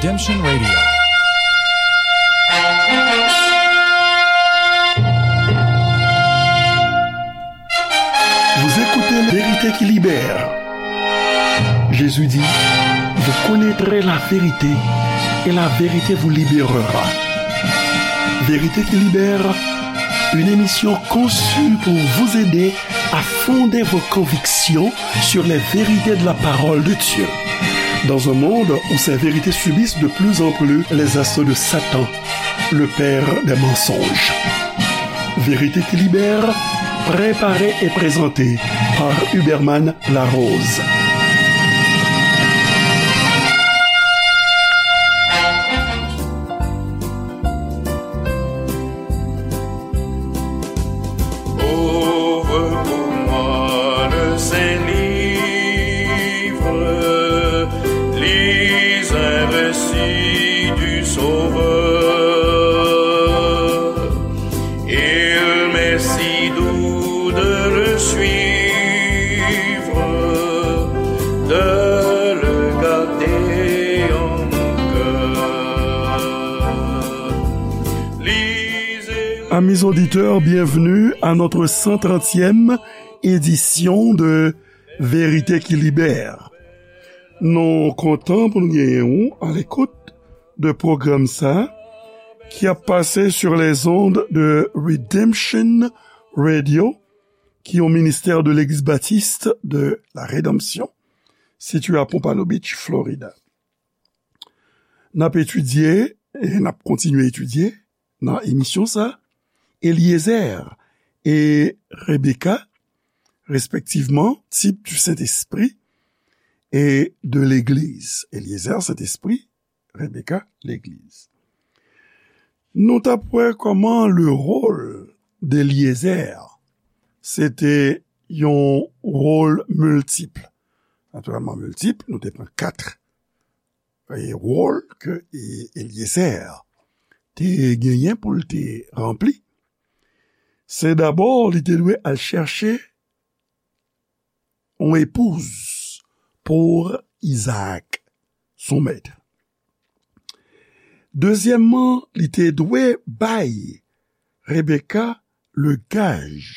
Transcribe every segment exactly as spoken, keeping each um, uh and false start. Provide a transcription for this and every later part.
Redemption Radio. Vous écoutez Vérité qui libère. Jésus dit, vous connaîtrez la vérité et la vérité vous libérera. Vérité qui libère, une émission conçue pour vous aider à fonder vos convictions sur les vérités de la parole de Dieu. Dans un monde où ces vérités subissent de plus en plus les assauts de Satan, le père des mensonges. Vérité qui libère, préparée et présentée par Huberman Larose. Ouvre pour moi le Saint-Livre, lis un récit du Sauveur. Il m'est si doux de le suivre, de le garder en mon cœur. Lisez. Amis auditeurs, bienvenue à notre cent trentième édition de Vérité qui libère. Nou kontan pou nou genyen ou alekout de pwogram sa ki ap pase sur les ondes de Redemption Radio, ki yon ministè de Legliz Batis de la Redanmsyon, sitiye a Pompano Beach, Florida. N ap etidye e n ap kontinye etidye nan emisyon sa, Eliezer e Rebecca, respectivement, type du Saint-Esprit et de l'Église. Eliezer, Sentespri, Rebecca, Legliz. Nou t ap wè kòman le rôle d'Eliezer, se te yon wòl miltip. Natirèlman miltip, nou te pran kat e wòl ke e, Eliezer te genyen pou l te ranpli. Se dabò li te dwe al chèche yon epouz pou Izaak, son mèt. Dezyèmman, li te dwe bay Rebecca le gaj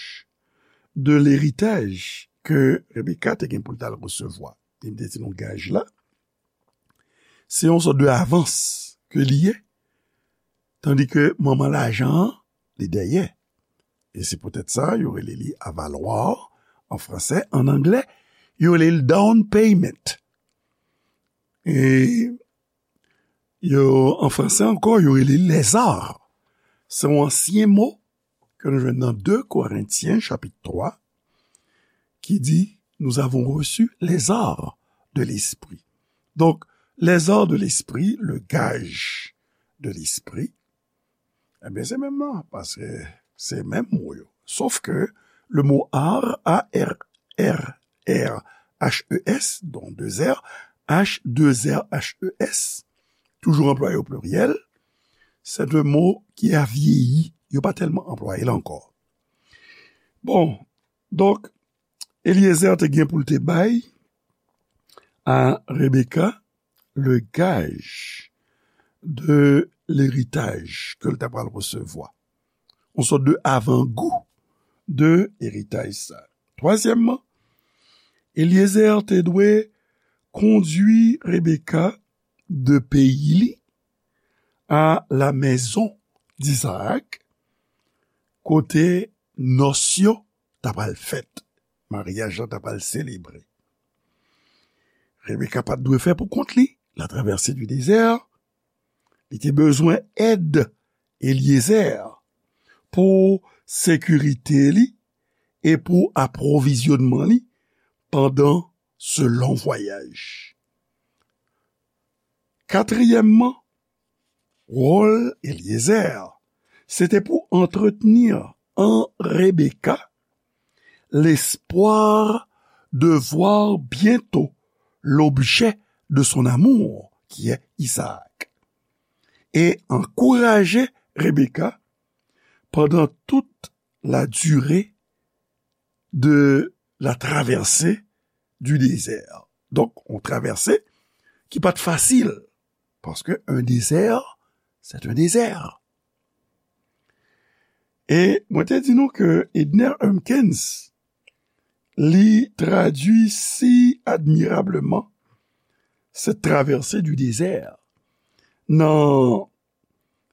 de leritaj ke Rebecca te gen pou l t al resevwa. Li te di nou gaj la, se yon sòt de avans ke li ye, tandi ke manman lajan an, li dèyè. E se poutèt sa, yo rele li avaloir an fransè. An anglè, yo rele li down payment. E yo, an fransè ankò, yo rele li lèzar. Se yon ansyen mo ke nou jwenn nan de Korentyen, chapit twa, ki di, nous avons reçu les arts de l'esprit. Donk, les arts de l'esprit, le gage de l'esprit, ebyen, se menm nan, paske se menm mo yo. Sof ke le mo art, A R R R H E S, donk de R, H, de R, H E S, toujou anplwaye o pliryèl, se de mo ki a vyeyi, yo pa tèlman anplwaye l ankò. Bon, donk, Eliezer te gen pou l te bay a Rebecca le gage de leritaj ke l ta pral resevwa. Yon sòt de avangou de eritaj sa. Twazyèmman, Eliezer te dwe kondui Rebecca de peyi li a la maison d'Isaac, kote nòs yo ta pral fèt, maryaj la ta pral selebre. Rebecca pa t dwe fè pou kont li, la travèse di dezè, li te bezwen èd Eliezer pou sekirite li e pou apwovizyonnman li pandan se lon vwayaj. Katriyèmman, wòl Eliezer, se te pou antretni an Rebecca l'espoir de voir bientôt l'objet de son amour, qui est Isaac, e ankouraje Rebecca pandan tout la durée de la traversée du désert. Donk, yon travèse ki pa t fasil. Paske un désert, c'est un désert. E mwen te di nou ke Edner Humpkins, li tradui si admirableman cette traversée du désert nan,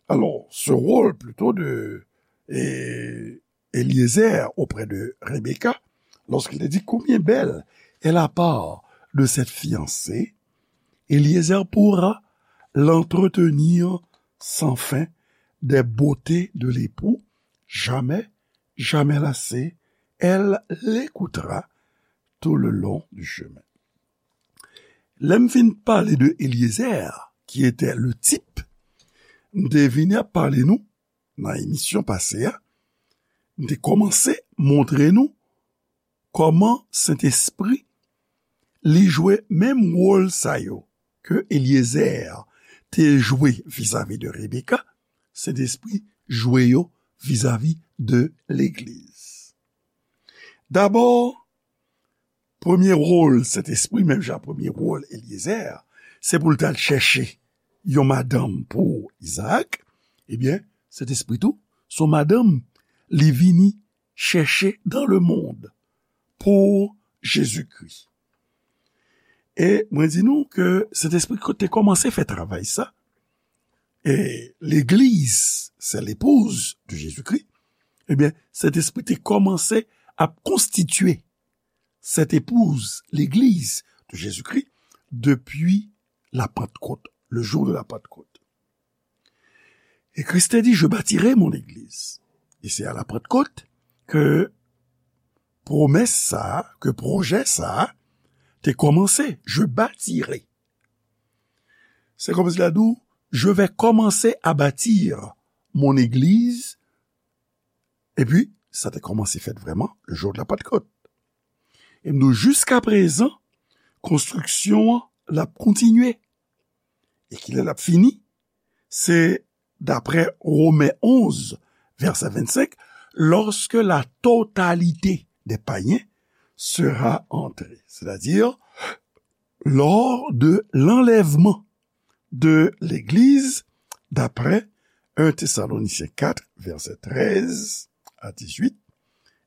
alors, ce rôle plutôt de eh, Eliezer auprès de Rebecca, lorsqu'il te dit combien belle est la part de cette fiancée, Eliezer pourra l'entretenir sans fin des beautés de l'époux, jamais, jamais lassée, elle l'écoutera tout le long du chemin. Lè m fin pale de Eliezer, qui était le type, m te vini ap pale nou nan emisyon pase a, m te kòmanse montre nou kòman Sentespri li jwe menm wòl sa yo ke Eliezer te jwe vizavi de Rebecca, Sentespri jwe yo vizavi de legliz. Dabò, premye wòl Sentespri, menm jan premye wòl Eliezer, se pou l t al chèche yon madanm pou Izaak, ebyen, Sentespri tou, se yon madanm li vini chèche dans le monde pou Jezikri. E mwen di nou ke Sentespri te kòmanse fè travay sa, e legliz, c'est l'épouse de Jésus-Christ, ebyen, Sentespri te kòmanse ap konstitye cette épouse, l'église de Jésus-Christ, depuis la Pentecôte, le jour de la Pentecôte. Et Christ dit, je bâtirai mon église. Et c'est à la Pentecôte que promès sa, ke pwojè sa te kòmanse, je bâtirai. Se kòmsi la di w, je vais commencer à bâtir mon église. Epi, sa te kòmanse fèt vrèman le jour de la Pentecôte. E m di w, jiska prezan, konstriksyon an, l ap kontinye. E kilè l ap fini? Se daprè Women onz, vèsè vennsenk, lorsque la totalité des païens sera entrée. C'est-à-dire, lors de l'enlèvement de l'Église, d'après un Thessaloniciens quatre, verset treize à dix-huit,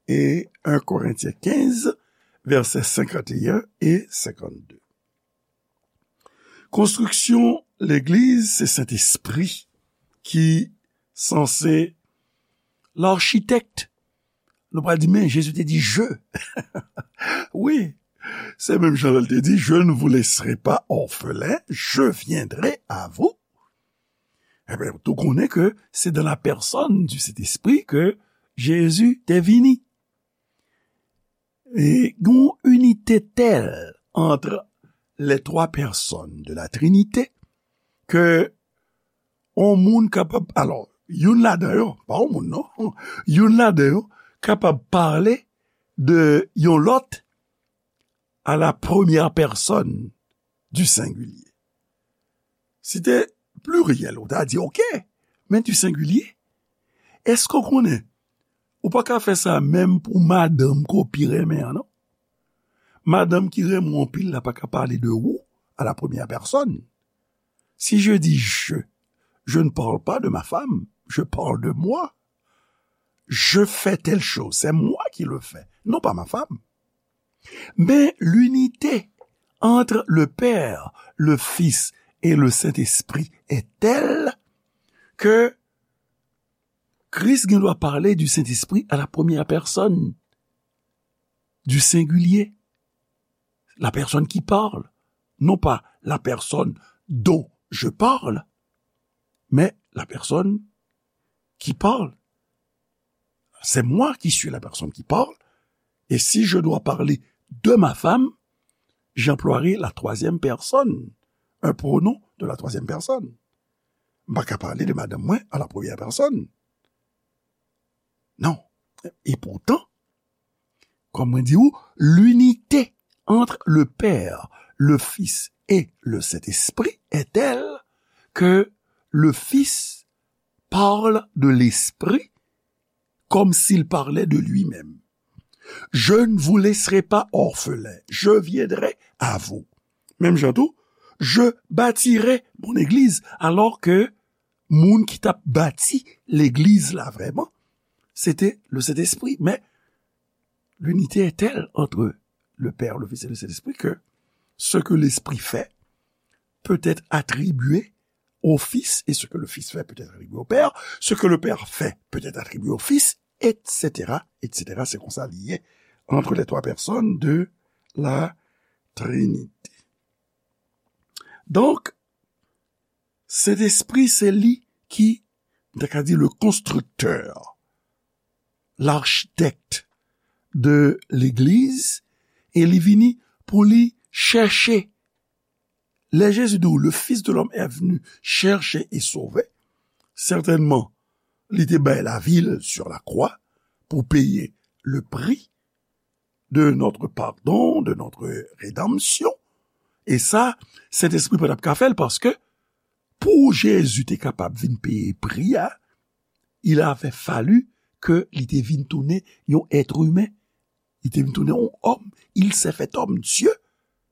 et un Corinthiens quinze, verset cinquante et un et cinquante-deux. Konstriksyon legliz, se Sentespri ki sanse l'architecte. Nou pral di, men Jezi te di, je. Wi, se menm jan l te di, je ne vous laisserai pas orphelins, je viendrai à vous. Ebyen, tou konnen ke se dans la personne du Saint-Esprit ke Jezi te vini. E yon inite tèl entre les trois personnes de la Trinité ke yon moun kapab, alò, youn ladan yo, pa yon moun non, youn ladan yo kapab pale de yon lòt à la première personne du singulier. Si te pliryèl, ou ta di, oke, men du singulier. Èske w konnen, ou pa ka fè sa menm pou madanm ke w pi renmen an, non? Madanm ki renmen w anpil la pa ka pale de ou à la première personne. Si je dis je, je ne parle pas de ma femme, je parle de moi. Je fais telle chose, c'est moi qui le fais, non pas ma femme. Mais l'unité entre le Père, le Fils et le Saint-Esprit est telle que Christ gen dwa pale du Saint-Esprit à la première personne, du singulier, la personne qui parle, non pas la personne dont je parle, mais la personne qui parle. C'est moi qui suis la personne qui parle. Et si je dois parler de ma femme, j'emploierai la troisième personne, un pronom de la troisième personne. M pa ka pale de madanm mwen à la première personne. Non. Et pourtant, kòm mwen di ou, l'unité entre le Père, le Fils et le Saint-Esprit est telle que le Fils parle de l'Esprit comme s'il parlait de lui-même. Je ne vous laisserai pas orphelins, je viendrai à vous. Menm jan tou, Je bâtirai mon église, alors que moun ki t ap bati legliz la vrèman, se te le Sentespri. Men, l'unité est telle entre le Père, le Fils et le Saint-Esprit que ce que l'Esprit fait peut être attribué au Fils, et ce que le Fils fait peut être attribué au Père, ce que le Père fait peut être attribué au Fils, et cetera, et cetera. C'est comme ça lié entre les trois personnes de la Trinité. Donc, Sentespri, se li ki, m ta ka di, le constructeur, l'architecte de legliz, e li vini pou li chèche. Lè Jezi di w, le Fils de l'homme est venu chercher et sauver, sètènman, li te bay lavi l sur la croix pou peye le prix de notre pardon, de notre rédemption. E sa, Sentespri pa t ap ka fè l, paske pou Jezi te kapab vin peye pri a, il avait fallu ke li te vin tounen yon èt imen. Li te vin tounen yon òm. Il s'est fait homme. Dieu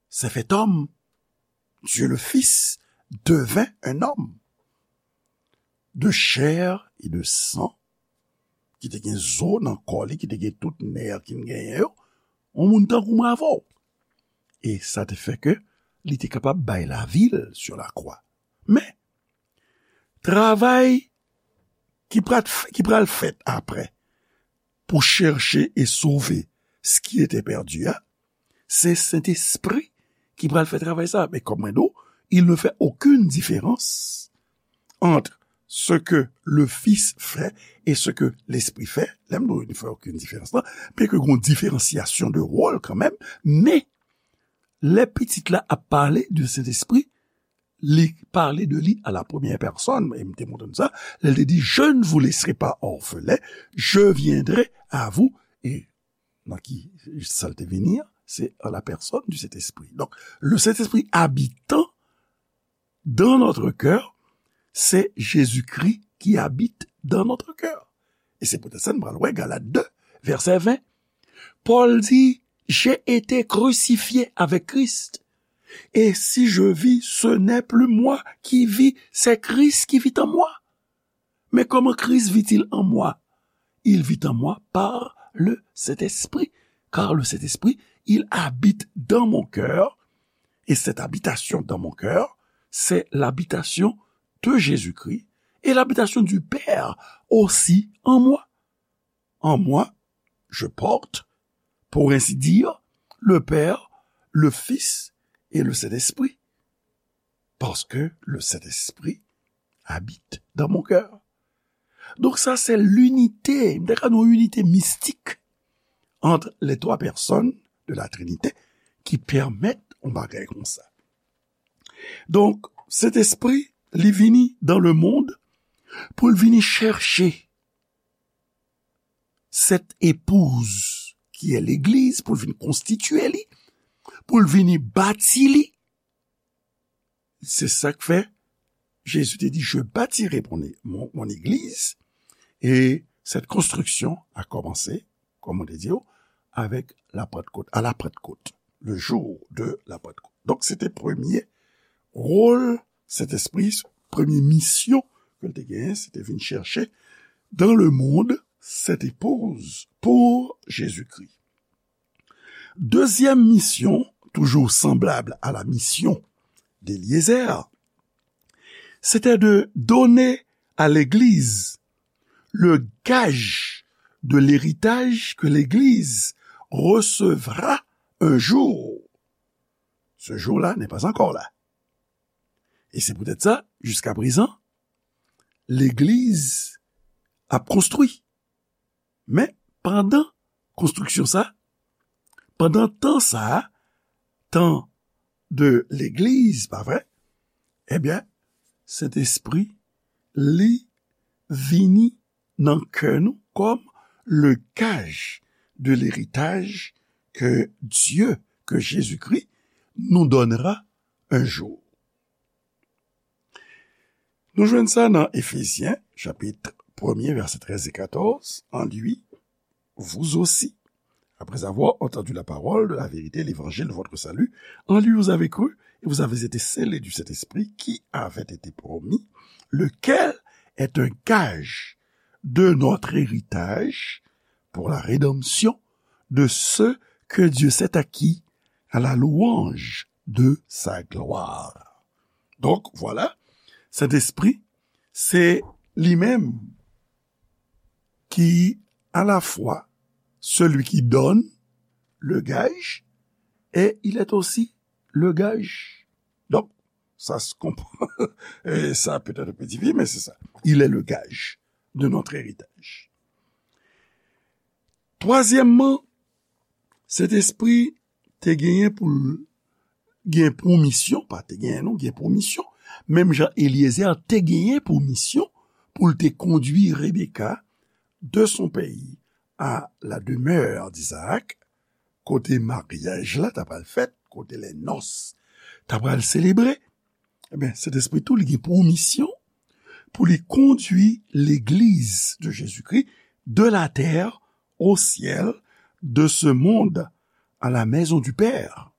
s'est fait homme. Dieu le Fils devint un homme de chair et de sang, ki te gen zo nan kò li, ki te gen tout nè ki n genyen yo, yon moun tankou mwen avè w. E sa te fè ke li te kapab bay lavi l sur la croix. Men, travay ki pral, ki pral fèt apre pou chèche e sove ce qui était perdu a, se Sentespri ki pral fè travay sa. Men kòm mwen di w, il ne fait aucune différence entre ce que le Fils fait et ce que l'Esprit fait. Lè m di w, il ne fait aucune différence la, byen ke gen yon diferansyasyon de wòl kanmenm, men lè pitit la ap pale de Sentespri, li pale de li à la première personne, e m te montre nou sa, lè l te di, je ne vous laisserai pas orphelins, je viendrai à vous, e nan ki sa l te vini an, se en la personne du Saint-Esprit. Donc, le Saint-Esprit habitant dans notre cœur, c'est Jésus-Christ qui habite dans notre cœur. E se poutèt sa n pral wè Galat de, vèsè ven. Pòl di, j'ai été crucifié avec Christ. Et si je vis, ce n'est plus moi qui vis, c'est Christ qui vit en moi. Mais comment Christ vit-il en moi? Il vit en moi par le Saint-Esprit, car le Saint-Esprit, il habite dans mon cœur, et cette habitation dans mon cœur, c'est l'habitation de Jésus-Christ et l'habitation du Père aussi en moi. En moi, je porte, pour ainsi dire, le Père, le Fils et le Saint-Esprit. Parce que le Saint-Esprit habite dans mon cœur. Donc ça, c'est l'unité, m ta ka di yon inite mistik entre les trois personnes de la Trinité ki pèmèt yon bagay konsa. Donk, Sentespri, li vini dans le monde pou l vini chèche cette épouse qui est l'église, pou l vin konstitye li, pou l vini bati li. Se sa k fè Jezi te di, je bâtirai mon, mon, mon église. Et cette construction a commencé, comme on te dit, avec la Pentecôte, à la Pentecôte, le jour de la Pentecôte. Donk, se te premye wòl Sentespri, premye misyon ke l te genyen, se te vin chèche dans le monde cette épouse pour Jésus-Christ. Dezyèm misyon, toujours semblable à la mission d'Éliézer, c'était de donner à l'Église le gage de l'héritage que l'Église recevra un jour. Ce jour-là n'est pas encore là. E se poutèt sa, jiska prezan, legliz ap konstwi. Men, pandan konstriksyon sa, pandan tan sa, tan de legliz, pa vre? Ebyen, Sentespri, li vini nan kè nou comme le gage de l'héritage que Dieu, que Jésus-Christ nous donnera un jour. Nou jwenn sa nan Efezyen, chapit premye, vèsè trèz e katòz, en lui, vous aussi, après avoir entendu la parole de la vérité, l'évangile de votre salut, en lui vous avez cru, et vous avez été scellés du Saint-Esprit qui avait été promis, lequel est un gage de notre héritage pour la rédemption de ceux que Dieu s'est acquis à la louange de sa gloire. Donk, vwala, Sentespri, se li menm ki alafwa celui qui donne le gage et il est aussi le gage. Donk, sa se konprann. E sa petèt un peu difisil, men se sa. Il est le gage de notre héritage. Twazyèmman, Sentespri te genyen pou l gen pou misyon, pa te genyen non, gen pou misyon, menm jan Eliezer te genyen pou misyon pou l te kondui Rebeka de son pays à la demeure d'Isaac, kote maryaj la ta pral fèt, kote les noces ta pral selebre. Ebyen, Sentespri tou, li gen pou misyon pou li kondui legliz de Jezikri de la terre au ciel, de ce monde à la maison du Père,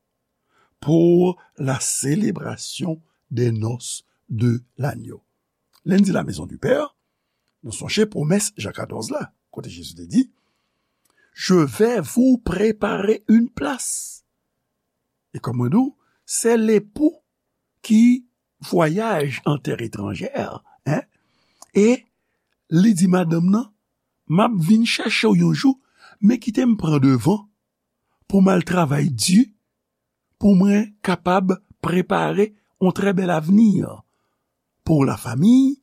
pour la célébration des noces de l'agneau. Lè n di la maison du Père, nou sonje pwomès Jan katòz la, kote Jezi te di, je vais vous préparer une place. E kòm mwen di w, se lepou ki vwayaj an tè etranjè, en, e li di madanm nan, m ap vin chèche w yon jou, men kite m pran devan pou m al travay di, pou mwen kapab prepare yon trè bèl avni pou la famiy,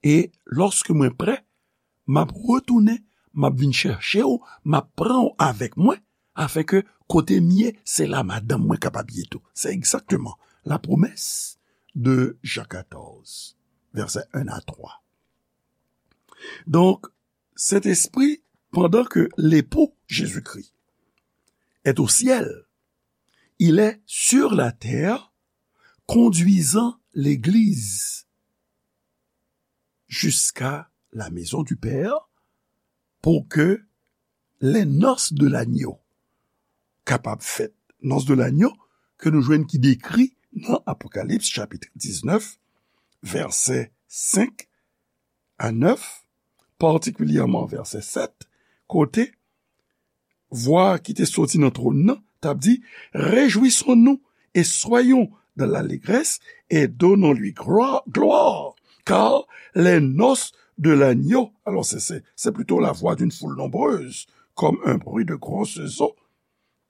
e lòske mwen prè, m ap retounen, m ap vin chèche w, m ap pran w avèk mwen, afenke kote m ye, se la madanm mwen kapab ye tou. Se egzakteman la promesse de Jean quatorze, versets un à trois. Donk, Sentespri, pandan ke lepou Jezikri est au ciel, il est sur la terre, conduisant l'Église jusqu'à la maison du Père, pour que les noces de l'agneau kapab fèt. Noces de l'agneau ke nou jwenn ki dekri nan Apokalips chapit diznèf, vèsè senk a nèf, patikilyèman vèsè sèt, kote vwa ki te soti nan twòn nan t ap di, rejwisons-nous et soyons dans l'allégresse et donnons-lui gloire, gloire, car les noces de l'agneau. Alors, c'est, c'est, c'est plutôt la voix d'une foule nombreuse, comme un bruit de grosses eaux,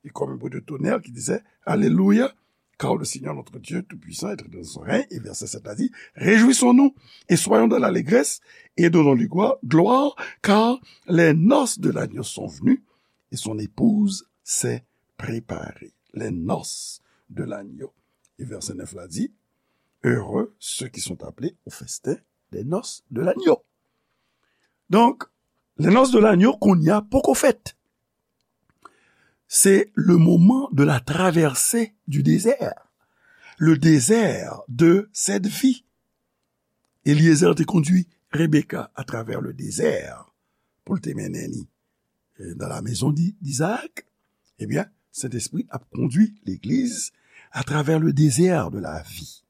et comme un bruit de tonnerre qui disait, Alléluia, car le Seigneur notre Dieu Tout-Puissant est dans son règne. Et verset sept a dit, rejwisons-nous et soyons dans l'allégresse et donnons-lui gloire, car les noces de l'agneau sont venues et son épouse s'est préparée. Les noces de l'agneau. Et verset neuf la dit, heureux ceux qui sont appelés au festin des noces de l'agneau. Donk, les noces de l'agneau kounye a poko fèt. C'est le moment de la traversée du désert, le désert de cette vie. Eliezer te kondui Rebeka atravè le désert pou l te mennen li, euh, dans la maison d'I-, d'Isaac. Ebyen, Sentespri ap kondui legliz atravè le désert de la vie.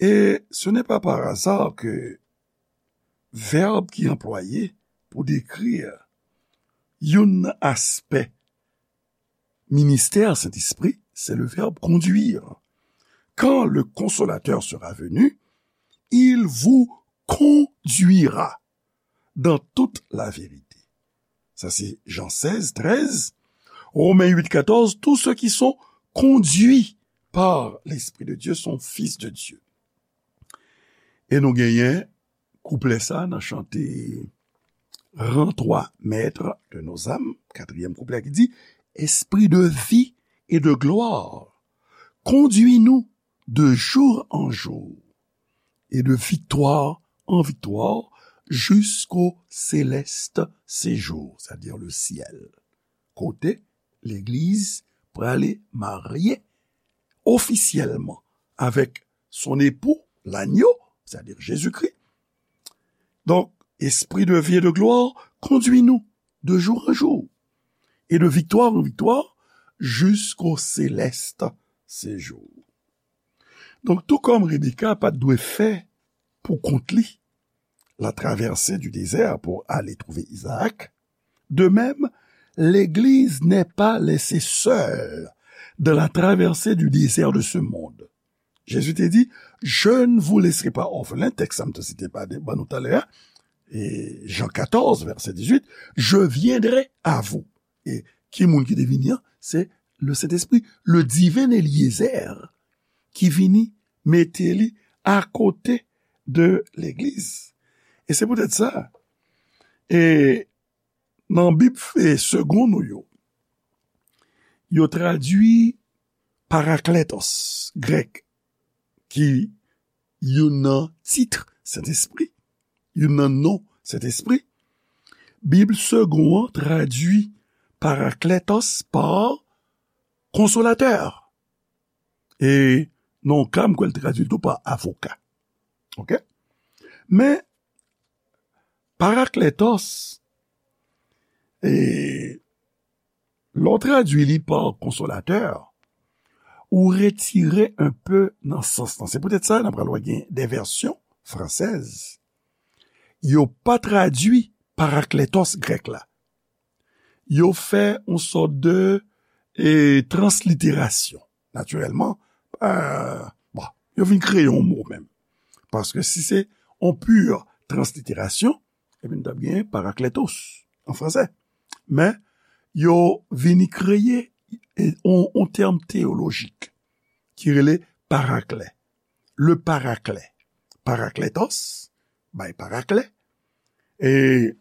Et ce n'est pas par hasard que vèb ki anplwaye pou dekri youn nan aspè ministè Sentespri, se le vèb conduire. Quand le Consolateur sera venu, il vous conduira dans toute la vérité. Ça, c'est Jean seize, treize. Romains huit, quatorze, tous ceux qui sont conduits par l'Esprit de Dieu sont fils de Dieu. E nou genyen kouplè sa nan chante Rends-toi maître de nos âmes, katriyèm kouplè ki di, Esprit de vie et de gloire, conduis-nous de jour en jour et de victoire en victoire jusqu'au céleste séjour, c'est-à-dire le ciel. Kote legliz prale marye ofisyèlman avec son époux, l'agneau, c'est-à-dire Jésus-Christ. Donc, Esprit de vie et de gloire, conduis-nous de jour en jour et de victoire en victoire jusqu'au céleste séjour. Donk, tou kòm Rebecca pa t dwe fè pou kont li la traversée du désert pour aller trouver Isaac, de même, l'Église n'est pas laissée seule dans la traversée du désert de ce monde. Jésus te di, je ne vous laisserai pas orphelins, tèks sa m te site ba nou talè a, e Jan katòz, vèsè dizuit, je viendrai à vous. E ki moun ki te vini an? Se le Sentespri, le divin Eliezer, ki vini mete li akote de legliz. E se poutèt sa, e nan Bib e segon nou yo, yo tradui parakletos, grèk, ki youn nan tit Sentespri, youn nan non Sentespri. Bib segon an tradui parakletos pa konsolatè. E nan yon ka, m kwè l tradui l tou pa avoka. Oke? Men, parakletos, e, lè w tradui li pa konsolatè, ou retire un peu nan sans lan. Se poutèt sa, n ap pral wè gen de vèsyon fransèz. Yo pa tradui parakletos grèk la. Yo fè yon sòt de, e, transliterasyon. Natirèlman, e, bon, yo vin kreye yon mo menm. Paske si se yon pur transliterasyon, ebyen, nou t ap gen parakletos an fransè. Men, yo vini kreye, e, yon, yon tèm teyolojik ki rele parakle. Le parakle. Parakletos, bay parakle. E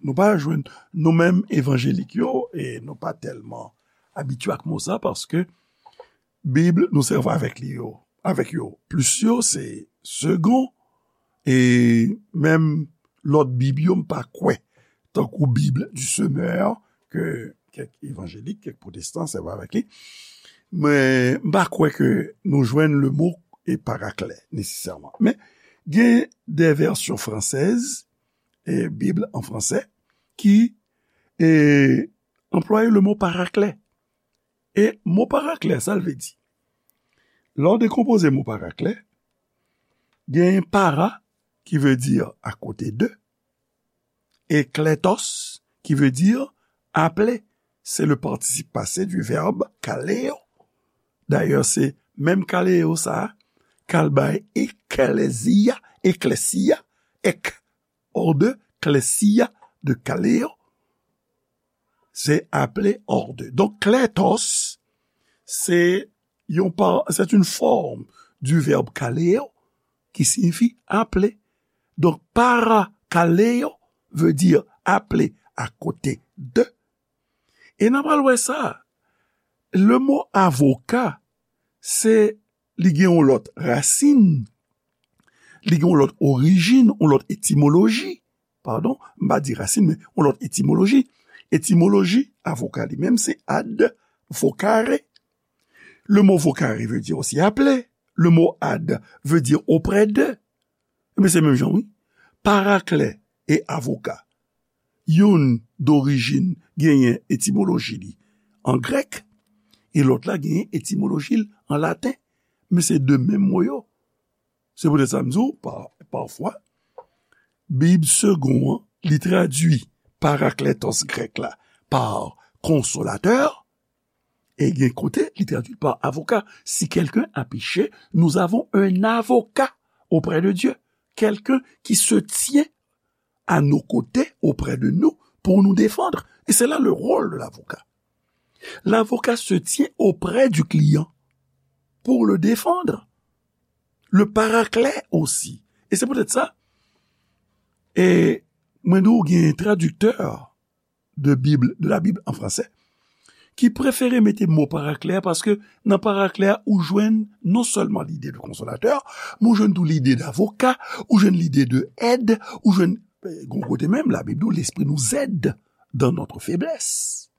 nou pa jwenn, nou menm evanjelik yo, e nou pa tèlman abitye ak mo sa, paske Bib nou sèvi avèk li yo, avèk yo. Plis yo, se segon, e menm lòt Bib yo, m pa kwè, tankou Bib du Semeur, ke kèk evanjelik, kèk pwotestan sèvi avèk li. Men, m pa kwè ke nou jwenn le mo e parakle, nesesèman. Men, gen de vèsyon fransèz, e Bib an fransè, ki, e, anplwaye le mo parakle. E mo parakle, sa l vle di? Lè w dekonpoze mo parakle, gen para, ki vle di akote de, e kletos, ki vle di aple. Se le partisip pase du vèb kaleo. Dayè, se menm kaleo sa a k al bay eklezia, eklesia, ek, hors de, klesia, de kaleo, se aple, hors de. Donk, kletos, se yon pa, c'est une forme du verbe kaleo qui signifie appeler. Donk, parakaleo veut dire appeler à côté de. E n a pral wè sa. Le mo avoka, se, li gen yon lòt rasin, li gen yon lòt orijin, yon lòt etimoloji. Padon, m pa di rasin, men yon lòt etimoloji. Etimoloji avoka li menm, se ad vocare. Le mot vocare veut dire aussi appeler. Le mot ad veut dire auprès de. Ebyen, se menm jan, wi. Parakle e avoka. Youn dorijin genyen etimoloji li an grèk, e lòt la genyen etimoloji l an laten. Men se de menm mo yo. Se poutèt sa m di w, pa, pafwa, Bib segon an, li tradui parakletos grèk la pa konsolatè, e gen kote, li tradui pa avoka. Si quelqu'un a péché, nous avons un avocat auprès de Dieu. Quelqu'un qui se tient à nos côtés, auprès de nous, pour nous défendre. Et c'est là le rôle de l'avocat. L'avocat se tient auprès du client pour le défendre. Le paraclet aussi. E se poutèt sa, e mwen di w gen tradiktè de Bib, de la Bib an fransè, ki prefere mete mo parakle a, paske nan parakle a, ou jwenn non sèlman lide de konsolatè, men ou jwenn tou lide d'avocat, ou jwenn lide de èd, ou jwenn, eh, gon kote menm, Labib di w, l'Esprit nous aide dans notre faiblesse.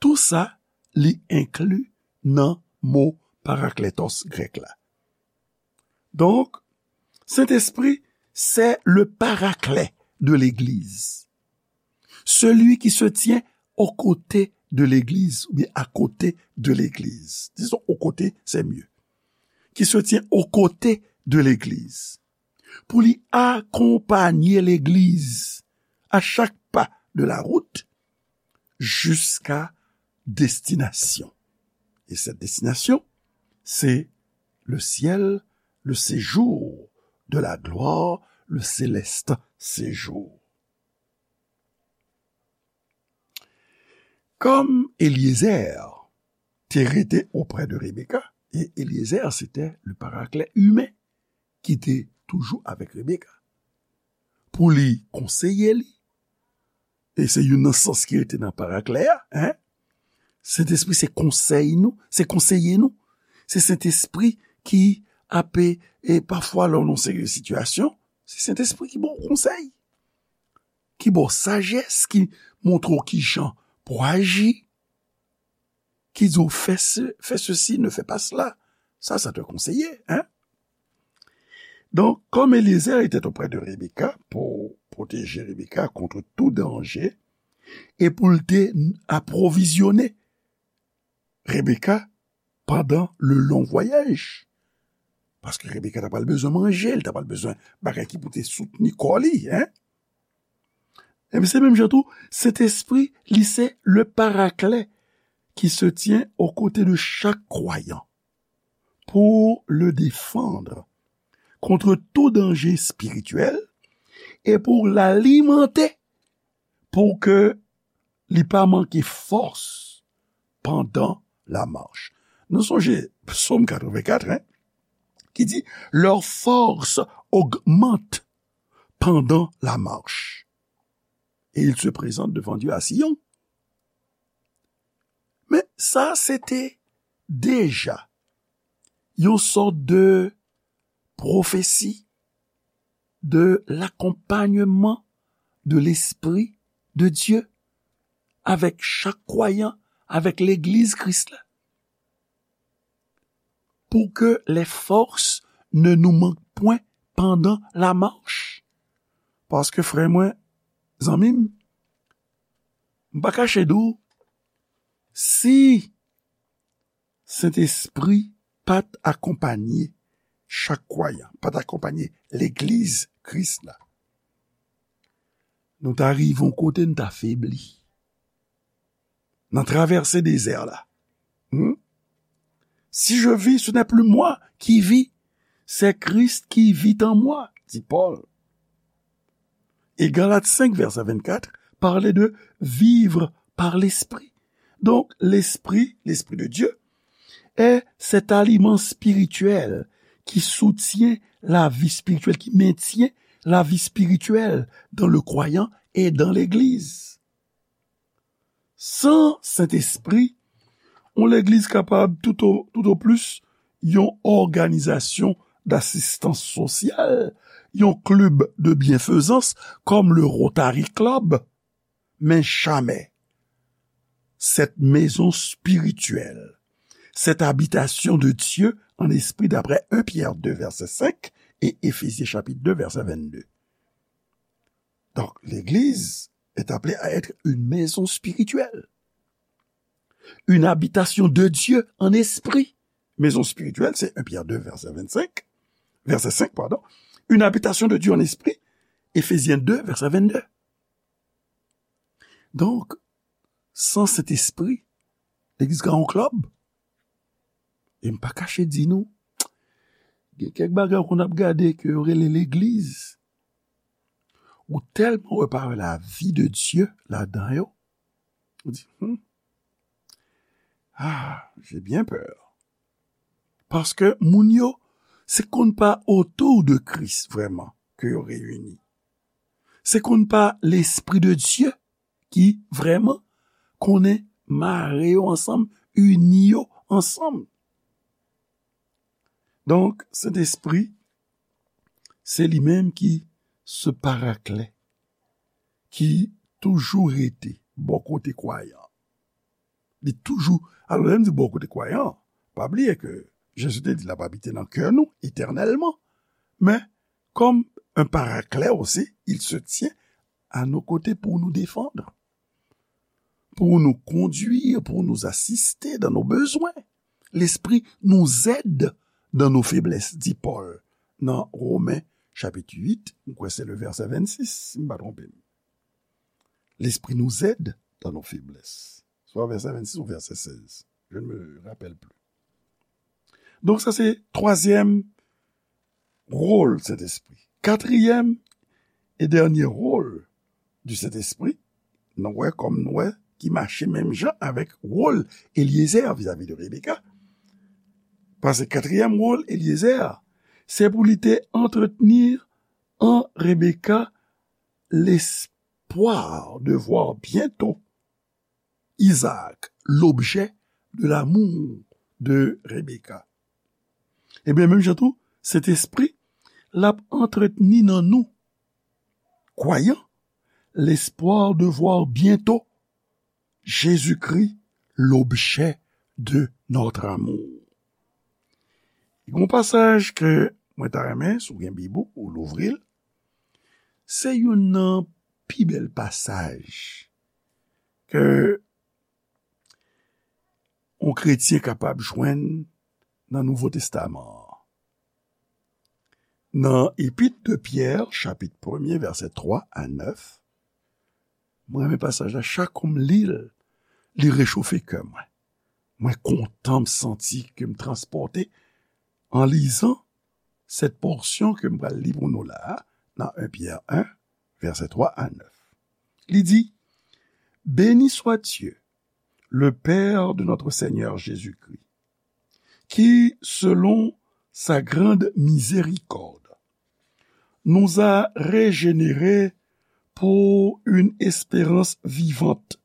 Tou sa, li enkli nan mo parakletos grèk la. Donk, Sentespri, c'est le paraclet de l'Église. Celui qui se tient aux côtés de l'église, oubyen à côté de l'église. Disons, aux côtés, c'est mieux. Qui se tient aux côtés de l'église. Pou li akonpanye legliz à chaque pas de la route jusqu'à destination. Et cette destination, c'est le ciel, le séjour de la gloire, le céleste séjour. Kòm Eliezer te rete oprè de Rebeka, e Eliezer se te le paraklet imen ki te toujou avèk Rebeka, pou li konseye li, e se youn nan sans ki rete nan paraklet a, en, Sentespri se konsèy nou, se konseye nou, se Sentespri ki ape, e pafwa lè w nan seri de sitiyasyon, se Sentespri ki ba w konsèy, ki ba w sajès, ki montre w ki jan pou aji, ki di w fè se, fè sesi, ne fè pa sela. Ça, ça te conseille, hein? Donc, comme Eliezer était auprès de Rebecca pour protéger Rebecca contre tout danger et pour te approvisionner Rebecca pendant le long voyage. Paske Rebecca ta pral bezwen manje, li ta pral bezwen bagay ki pou te soutni kò li, en. Ebyen, se menm jan tou, Sentespri, li se le paraklet qui se tient aux côtés de chaque croyant pour le défendre contre tout danger spirituel et pour l'alimenter pour que li pa manke fòs pandan la mach. Nou sonje Psaume quatre-vingt-quatre, hein, qui dit, leur force augmente pendant la marche. Et ils se présentent devant Dieu à Sion. Men sa se te deja yon sòt de pwofesi de l'akonpanyman de Lespri de Dye avèk chak kwayan, avèk legliz Kris la. Pour que les forces ne nous manquent point pendant la marche. Paske, frè mwen, zanmi m, m pa kache di w, si Sentespri pa t akonpanye chak kwayan, pa t akonpanye legliz Kris la, nou ta rive yon kote n ta febli. Nan travèse dezè la. Hmm? Si je vis, ce n'est plus moi qui vis, c'est Christ qui vit en moi, dit Paul. Et Galates cinq, verset vingt-quatre, parlait de vivre par l'Esprit. Donc, l'Esprit, l'Esprit de Dieu, est cet aliment spirituel qui soutient la vie spirituelle, qui maintient la vie spirituelle dans le croyant et dans l'Église. San Sentespri, yon legliz kapab tout o, tout o plis yon òganizasyon dasistans sosyal, yon klib de byenfezans kòm le Rotary Club, men jamè cette maison spirituelle, cette habitation de Dieu en esprit, d'après un Pierre deux, verset cinq, et Éphésiens chapitre deux, verset vingt-deux. Donc, l'Église est appelée à être une maison spirituelle, une habitation de Dieu en esprit. Maison spirituelle, c'est un Pierre deux, verset vingt-cinq, verset cinq, pardon. Une habitation de Dieu en esprit, Éphésiens deux, verset vingt-deux. Donk, san Sentespri, legliz ka yon klèb. E m pa kache di nou, gen kèk bagay ou konn ap gade ke yo rele legliz. Ou tèlman wè pa wè la vie de Dieu ladan yo. Ou di, hmm, ah, j'ai bien peur. Paske moun yo, se konn pa otou de Kris vrèman ke yo reyini. Se konn pa Lespri de Dye ki vrèman konnen mare yo ansanm, ini yo ansanm. Donk, Sentespri, se li menm ki se paraklet, ki toujou rete bò kote kwayan. Li toujou, alò, lè m di bò kote kwayan, pa bliye ke Jezi te di l ap abite nan kè nou etènèlman. Men, comme un paraclet aussi, il se tient à nos côtés pour nous défendre. pour nous conduire, pour nous assister dans nos besoins. L'Esprit nous aide dans nos faiblesses, di Pòl nan Women chapit uit, m kwè se le vèsè vennsis, si m pa twonpe m. L'Esprit nous aide dans nos faiblesses. Swa vèsè vennsis ou vèsè sèz. Je ne me rappelle plus. Donk, sa se twazyèm wòl Sentespri. Katriyèm e dènye wòl di Sentespri, nou wè kòm nou wè ki mache menm jan avèk wòl Elyezè vizavi de Rebeka. Paske katriyèm wòl Elyezè, se pou li te antretni an Rebeka lespwa de vwa byento Isaac, l'objet de l'amour de Rebecca. Ebyen, menm jan tou, Sentespri, l ap antretni nan nou, kwayan, lespwa de vwa byento Jezikri, l'objet de notre amour. Gen yon pasaj ke mwen ta renmen, si w gen Bib ou, ou louvri l. Se youn nan pi bèl pasaj ke yon kretyen kapab jwenn nan Nouvo Testaman an. Nan Epit de Pyè, chapit premye, vèsè twa a nèf, mwen renmen pasaj la, chak kou m li l, li rechofe kè mwen. Mwen kontan, m santi ke m transpòte an lizan sèt pòsyon ke m pral li pou nou la a, nan en Pyè en, vèsè twa a nèf. Li di, Béni soit Dieu, le Père de notre Seigneur Jésus-Christ, qui, selon sa grande miséricorde, nous a régénérés pour une espérance vivante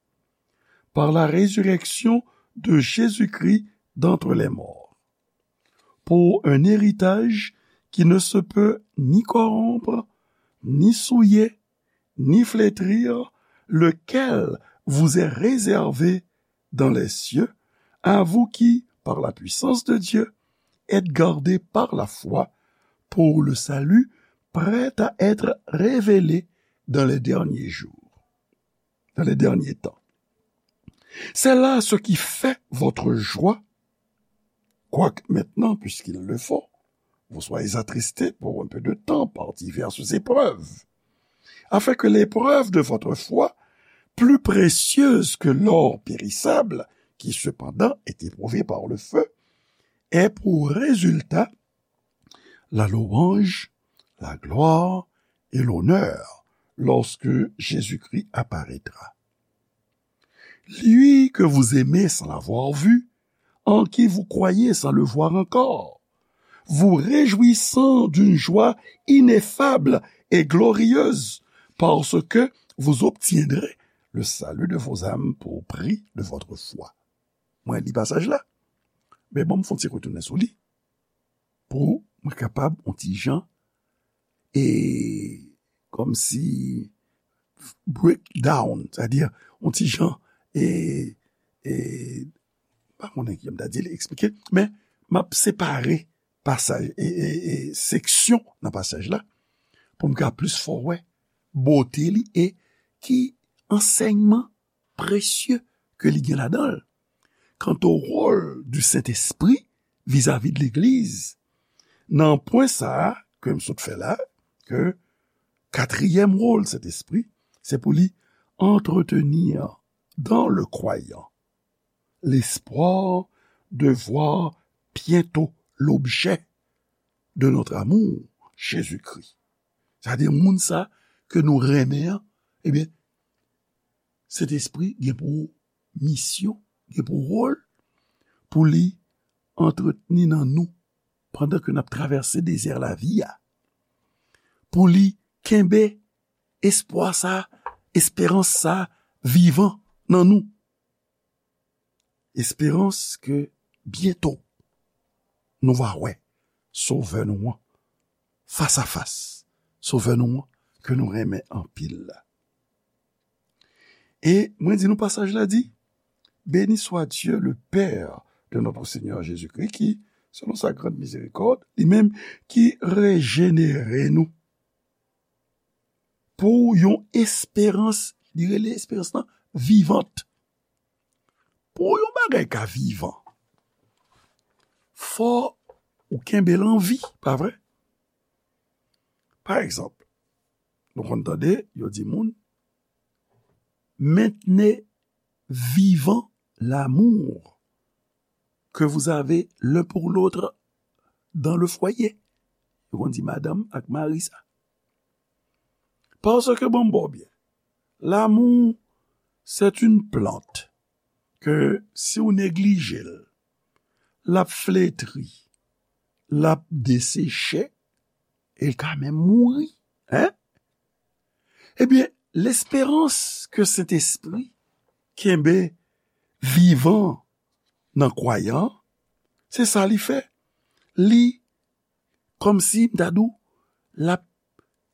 par la résurrection de Jésus-Christ d'entre les morts, pour un héritage qui ne se peut ni corrompre, ni souiller, ni flétrir, lequel vous est réservé dans les cieux, à vous qui, par la puissance de Dieu, êtes gardés par la foi pour le salut prêt à être révélé dans les derniers jours, dans les derniers temps. C'est là ce qui fait votre joie, quoique maintenant, puisqu'il le faut, vous soyez attristés pour un peu de temps par diverses épreuves, afin que l'épreuve de votre foi, plus précieuse que l'or périssable, qui cependant est éprouvé par le feu, ait pour résultat la louange, la gloire et l'honneur lorsque Jésus-Christ apparaîtra. Lui que vous aimez sans l'avoir vu, en qui vous croyez sans le voir encore, vous réjouissant d'une joie ineffable et glorieuse, parce que vous obtiendrez le salut de vos âmes pour prix de votre foi. Mwen li pasaj la, men bon, m fè yon ti retounen sou li pou mwen kapab yon ti jan e kòmsi break down, sètadi yon ti jan e, e pa konnen ki jan m ta di l, eksplike, men m ap separe pasaj e, e, e seksyon nan pasaj la pou m ka plis fè w wè bote li e ki ansèyman presye ke li gen ladan l. Kanto wòl di Sentespri vizavi de legliz, nan pwen sa a ke m sot fè la, ke katriyèm wòl Sentespri, se pou li entretenir dans le croyant l'espoir de voir bientôt l'objet de notre amour, Jésus-Christ. Sètadi moun sa ke nou renmen an, ebyen, Sentespri gen pou misyon, gen pou wòl, pou li antretni nan nou pandan ke n ap travèse dezè lavi a, pou li kenbe espwa sa, esperans sa vivan nan nou. Esperans ke byento nou va wè Sovè nou an fas a fas, Sovè nou an ke nou renmen anpil la. E mwen di nou pasaj la di, Béni soit Dieu, le Père de notre Seigneur Jésus-Christ, qui, selon sa grande miséricorde, li menm ki rejenere nou pou yon esperans, li rele esperans lan vivant. Pou yon bagay ka vivan, fò ou kenbe l an vi, pa vre? Pa egzanp, nou konn tande yo di moun, maintenez vivant l'amour que vous avez l'un pour l'autre dans le foyer. Yo konn di madanm ak mari sa. Paske, bon, bon, byen, l'amour, c'est une plante que si w neglije l, l ap fletri, l ap deseche, e l ka menm mouri. Hein? Ebyen, lesperans ke Sentespri kenbe vivan nan kwayan, se sa li fè. Li, kòmsi m ta di w, l ap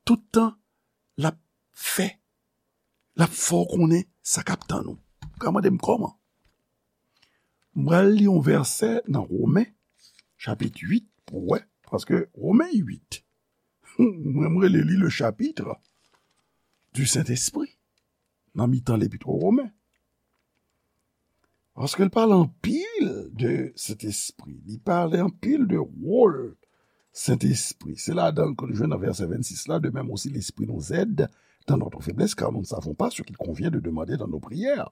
tout tan, l ap fè, l ap fè w konnen sa k ap tann ou. Ou ka mande m kòman? M pral li yon vèsè nan Women, chapit uit, pou w wè, paske Women uit, mwen, m rele li le chapitre du Saint-Esprit, nan mitan lepit o Women. Paske l pale anpil de Sentespri, li pale anpil de wòl Sentespri. Se ladan l ke nou jwenn nan vèsè vennsis la, de même aussi l'Esprit nous aide dans notre faiblesse, car nous ne savons pas ce qu'il convient de demander dans nos prières.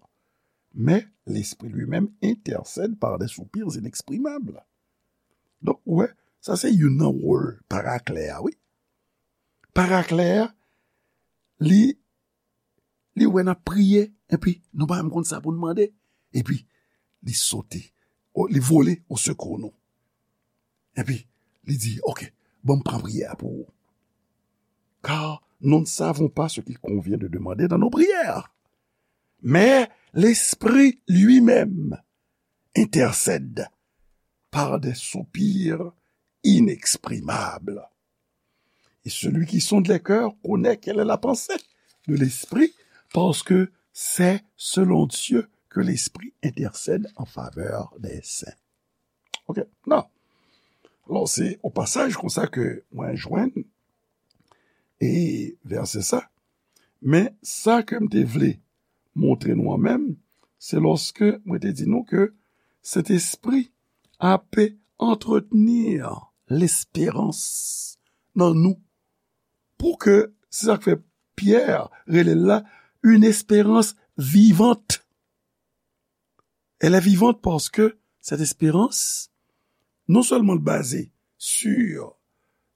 Mais l'Esprit lui-même intercède par des soupirs inexprimables. Donk, ou wè, sa se youn nan wòl paraklè a, wi. Paraklè a, li, li wè n ap priye, epi nou pa menm konn sa pou n mande. Epi, li sote, o, li vole au secours nou. Epi, li di, ok, bon, m pran priyè a pou ou. Car nous ne savons pas ce qu'il convient de demander dans nos prières. Mais l'Esprit lui-même intercède par des soupirs inexprimables. Et celui qui sonde les cœurs connaît quelle est la pensée de l'Esprit, parce que c'est selon Dieu que l'Esprit intercède en faveur des saints. Ok, non. Alò, se o pasaj konsa ke mwen jwenn e vèsè sa. Men sa ke m te vle montre nou an menm, se lòske mwen te di nou ke Sentespri ape antretenir lesperans nan nou. Pou ke, se sa k fè Pyè rele l la, une espérance vivante. Elle est vivante parce que cette espérance, non seulement basée sur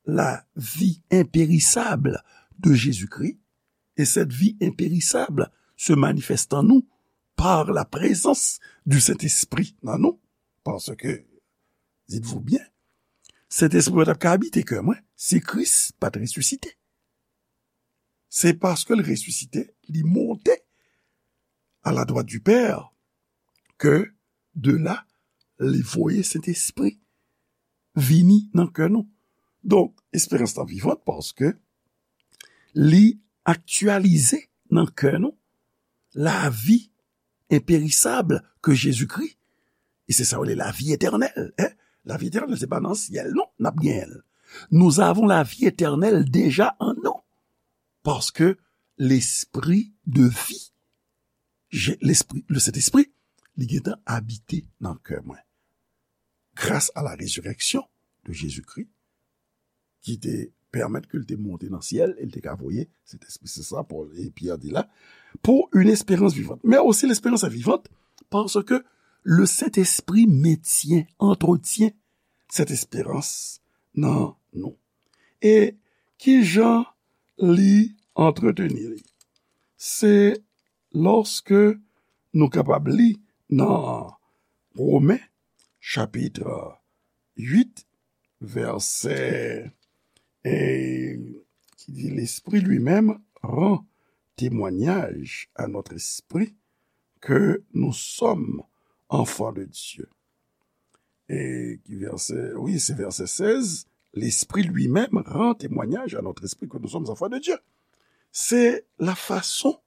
la vie impérissable de Jésus-Christ, et cette vie impérissable se manifeste en nous par la présence du Saint-Esprit dans nous, parce que, dites-vous bien, Sentespri pa t ap ka abite kè mwen si Kris pa t resisite. Se paske l resisite, li monte à la droite du Père, ke de la, li voye Sentespri vini nan kè nou. Donk, esperans lan vivant paske li aktyalize nan kè nou lavi enperisab ke Jezikri. E se sa yo rele lavi etènèl, en. Lavi etènèl, se pa nan syèl, non, n ap genyen l. Nous avons la vie éternelle déjà en nous. Paske lespri de vi, Je-, lespri, le Sentespri, li gentan abite nan kè mwen. Grâce à la résurrection de Jésus-Christ, ki te pèmèt ke l te monte nan syèl, e l te ka voye Sentespri. Se sa Pòl e Pyè di la, pour une espérance vivante. Mais aussi l'espérance est vivante parce que le Saint-Esprit maintient, entretient cette espérance nan nou. E ki jan li antreteni li? Se lòske nou kapab li nan Women, chapit uit, vèsè, e, ki di, L'Esprit lui-même rend témoignage à notre esprit que nous sommes enfants de Dieu. E ki vèsè? Wi, se vèsè sèz. L'Esprit lui-même rend témoignage à notre esprit que nous sommes enfants de Dieu. C'est la façon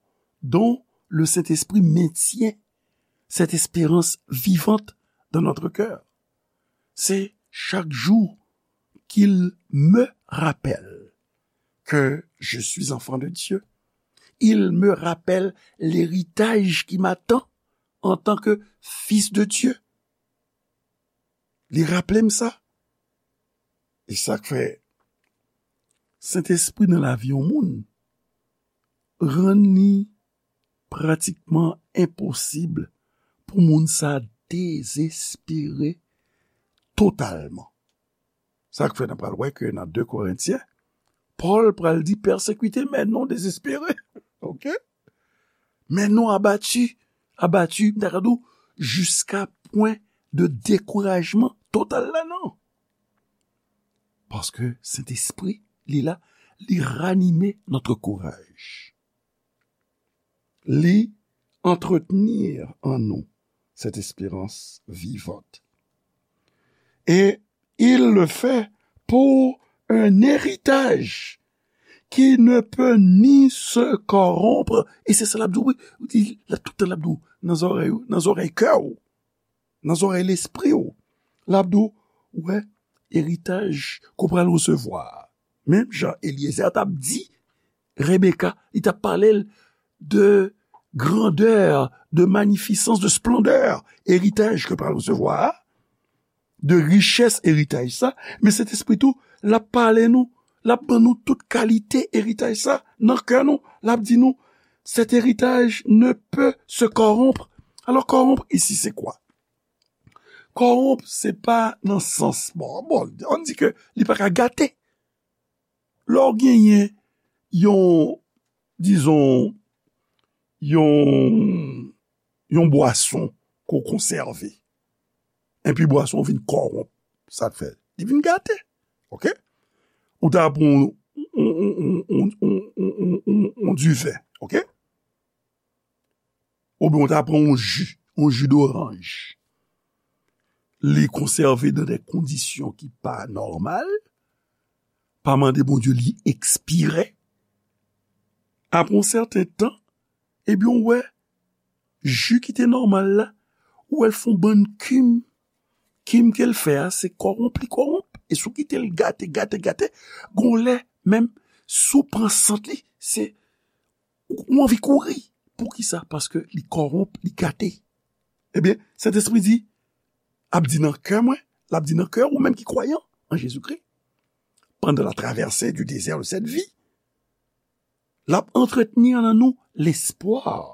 dont le Saint-Esprit maintient cette espérance vivante dans notre cœur. C'est chaque jour qu'il me rappelle que je suis enfant de Dieu. Il me rappelle l'héritage qui m'attend antanke fis de Dye. Li raple m sa. E sa k fè Sentespri nan lavi yon moun rann li pratikman enposib pou moun sa dezespere totalman. Sa k fè n ap pral wè ke nan de Korentyen, Pòl pral di, pèsekite, men non dezespere. Oke? Men non abati, abati, m ta ka di w, jiska pwen de dekourajman total la, non. Paske Sentespri, li la, li ranime notre courage. Li entretenir en nous cette espérance vivante. Et il le fait pour un héritage qui ne peut ni se corrompre. E se sa l ap di w, wi. Li, la, tout tan l ap di w, nan zòrèy ou, nan zòrèy kè w, nan zòrèy lespri w. L ap di w, wè, eritaj ke w pral resevwa. Menm jan Elyezè t ap di Rebeka, li t ap pale l de grandè, de manifisans, de splendè eritaj ke w pral resevwa a, de richès eritaj sa, men Sentespri tou, l ap pale nou, l ap ban nou tout kalite eritaj sa nan kè nou, l ap di nou, cet héritage ne peut se corrompre. Alò, corrompre isi, se kwa? Corrompre, se pa nan sans, bon, bon, ann di ke li pa ka gate. Lè w genyen yon, dizon, yon, yon bwason ke w konsève, epi bwason vin kòwonp, sa k fè? Li vin gate. Oke? Ou ta pran yon, yon, yon diven, oke? Oubyen ou ta pran yon ji, yon ji doranj. Li konsève nan de kondisyon ki pa nòmal, pa mande Bondye li ekspire. Apre yon sèten tan, ebyen, ou wè, ji ki te nòmal la, ou wè l fè yon bann kim. Kim ke l fè a, se kòwonp li kòwonp. E si w kite l gate, gate, gate, gon lè, menm si w pran sant li, se, ou, ou anvi kouri. Poukisa? Paske li kòwonp, li gate. Ebyen, Sentespri di, ap di nan kè mwen, l ap di nan kè ou menm ki kwayan an Jezikri, pendant la traversée du désert de cette vie, l ap antretni nan nou lespwa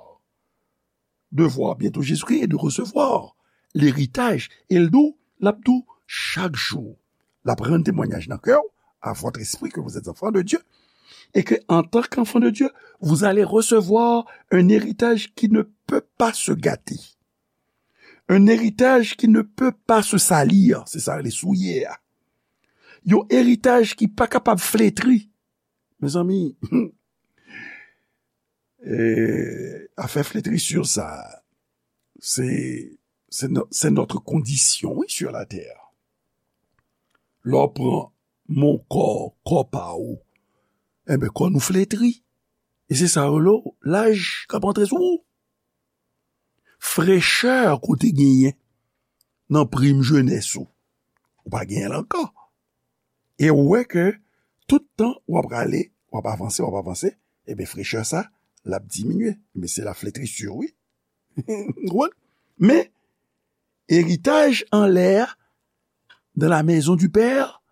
de voir bientôt Jésus-Christ et de recevoir l'héritage. E l di w, l ap di w, chak jou, l ap rann temwanyaj nan kè w, à votre esprit, que vous êtes enfants de Dieu, et que, en tant qu'enfants de Dieu, vous allez recevoir un héritage qui ne peut pas se gâter. Un héritage qui ne peut pas se salir, se sa yo rele souye a. Yon eritaj ki pa kapab fletri. Mezanmi, e, afè fletrisir sa, se, se no-, c'est notre condition, oui, sur la terre. Lè w pran mo kò, kò pa ou, enben, kò nou fletri. E se sa yo rele laj k ap antre sou ou. Frechè ke w te genyen nan prim jenès ou, ou pa genyen l ankò. E ou wè ke tout tan w ap rale, w ap avanse, w ap avanse, ebyen, frechè sa, l ap diminye. Men se la fletrisir, wi. Ou konprann? Men, eritaj anlè a, dans la maison du Père,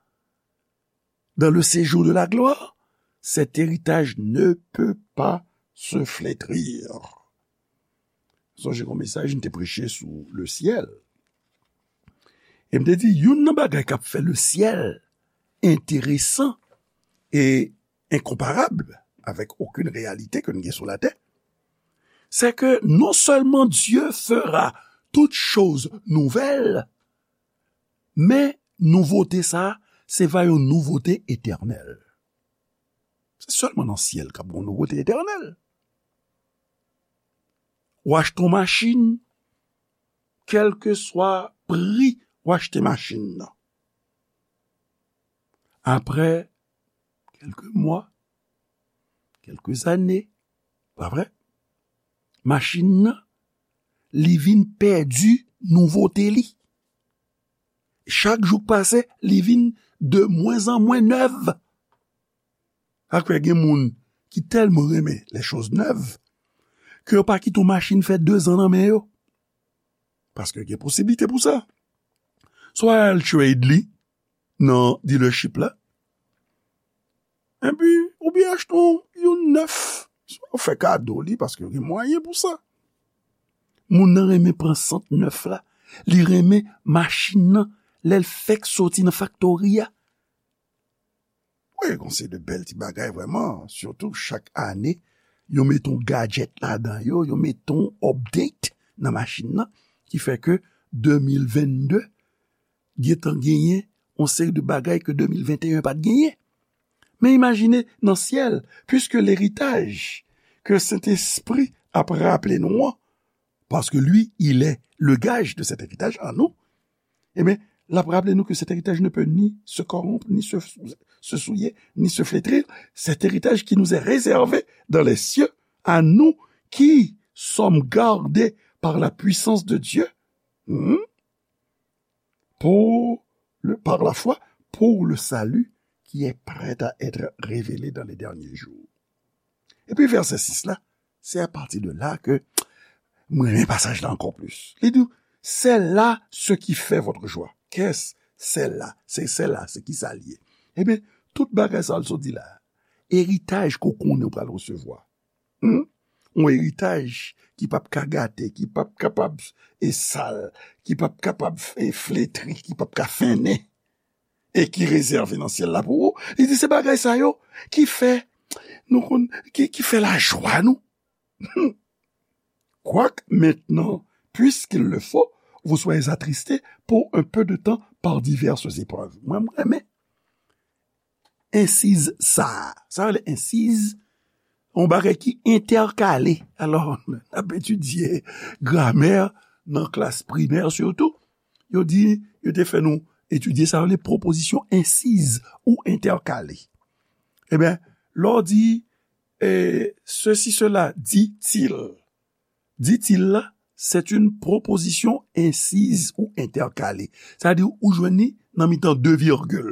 dans le séjour de la gloire, cet héritage ne peut pas se flétrir. Sonje yon mesaj m te preche sou le syèl. E m te di, youn nan bagay k ap fè le syèl enteresan e enkonparab avèk okenn reyalite ke n gen sou latè, c'est que non seulement Dieu fera toutes choses nouvelles, men nouvote sa a, se va yon nouvote etènèl. Se sèlman nan syèl k ap gen yon nouvote etènèl. Ou achte yon machin, kèlkeswa pri ou achte machin nan. Apre kèlke mwa, kèlke zane, pa vre? Machin nan, li vin pèdi nouvote li. Chak jou k pase, li vin de moins en moins nèv. Sa k fè gen moun ki tèlman renmen les choses neuves ke yo pa kite yon machin fè dezan nan men yo. Paske gen posiblite pou sa. Swa al trade li nan dealership la, epi oubyen achte yon, yon nèf, swa fè kado li, paske gen mwayen pou sa. Moun nan renmen pran sant nèf la, li renmen machin nan, lè l fèk soti nan faktori a. Wi, gon seri de bèl ti bagay vrèman, sitou chak ane, yo met yon gadget ladan yo, yo met yon update nan machin nan, ki fè ke de mil vennde gentan genyen yon seri de bagay ke de mil venteyen pa t genyen. Men imajine nan syèl, puisque l'héritage que Sentespri ap raple nou an, parce que lui, il est le gage de cet héritage en nous, ebyen, l ap raple nou ke cet héritage ne peut ni se corrompre, ni se, se souiller, ni se flétrir. Cet héritage qui nous est réservé dans les cieux, à nous qui sommes gardés par la puissance de Dieu, hmm, pour le, par la foi, pour le salut qui est prêt à être révélé dans les derniers jours. Epi vèsè sis la, se apati de la ke mwen renmen pasaj la ankò plis. Li di, c'est là ce qui fait votre joie. Qu'est-ce c'est là? Se, c'est là, se ki sa l ye? Ebyen, tout bagay sa l sot di la, eritaj ke w konnen w pral resevwa. Hmm? Yon eritaj ki p ap ka gate, ki p ap kapab e sal, ki p ap kapab e fletri, ki p ap ka fennen, e ki rezève nan syèl la pou ou. Li di se bagay sa yo ki fè, nou konn, ki, ki fè lajwa nou. Quoique maintenant, puisqu'il le faut, vous soyez attristés pour un peu de temps par diverses épreuves. Mwen, mwen renmen ensiz sa a. Sa rele ensiz, yon bagay ki entèkale. Alò, n ap etidye gramè nan klas primè sitou. Yo di, yo te fè nou etidye sa rele pwopozisyon ensiz ou entèkale. Ebyen, lè w di, eh, ceci, cela, dit-il. Dit-il la, c'est une proposition incise ou intercalée. Sa di ou jwenn li nan mitan de virgil.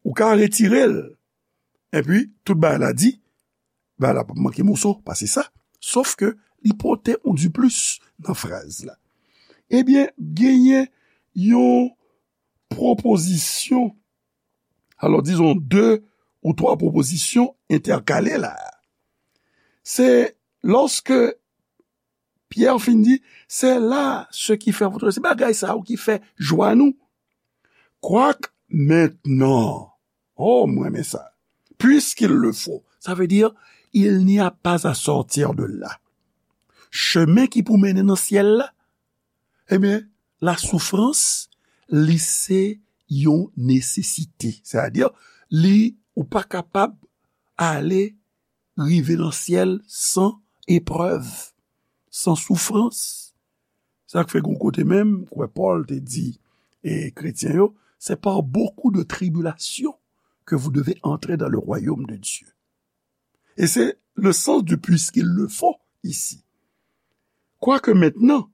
Ou ka retire l. Epi, tout bagay la di, bagay la p ap manke moso, pa se sa. Sof ke li pote yon diplis nan fraz la. Ebyen, genyen yon pwopozisyon, alò, dizon, de ou twa pwopozisyon entèkale la. Se lòske Pyè fin di, c'est là ce qui fait votre, se bagay sa yo ki fè jwa nou. Quoique maintenant, oh, mwen renmen sa. Puisqu'il le faut, ça veut dire, il n'y a pas à sortir de là. Chemen ki pou mennen nan syèl la, ebyen, lasoufrans, li se yon nesesite. Sètadi, li, ou pa kapab ale rive nan syèl san eprèv, san soufrans. Sa k fè gon kote menm, kwè Pòl te di, e kretyen yo, c'est par beaucoup de tribulations que vous devez entrer dans le royaume de Dieu. Et c'est le sens du puisqu'il le faut ici. Quoique maintenant,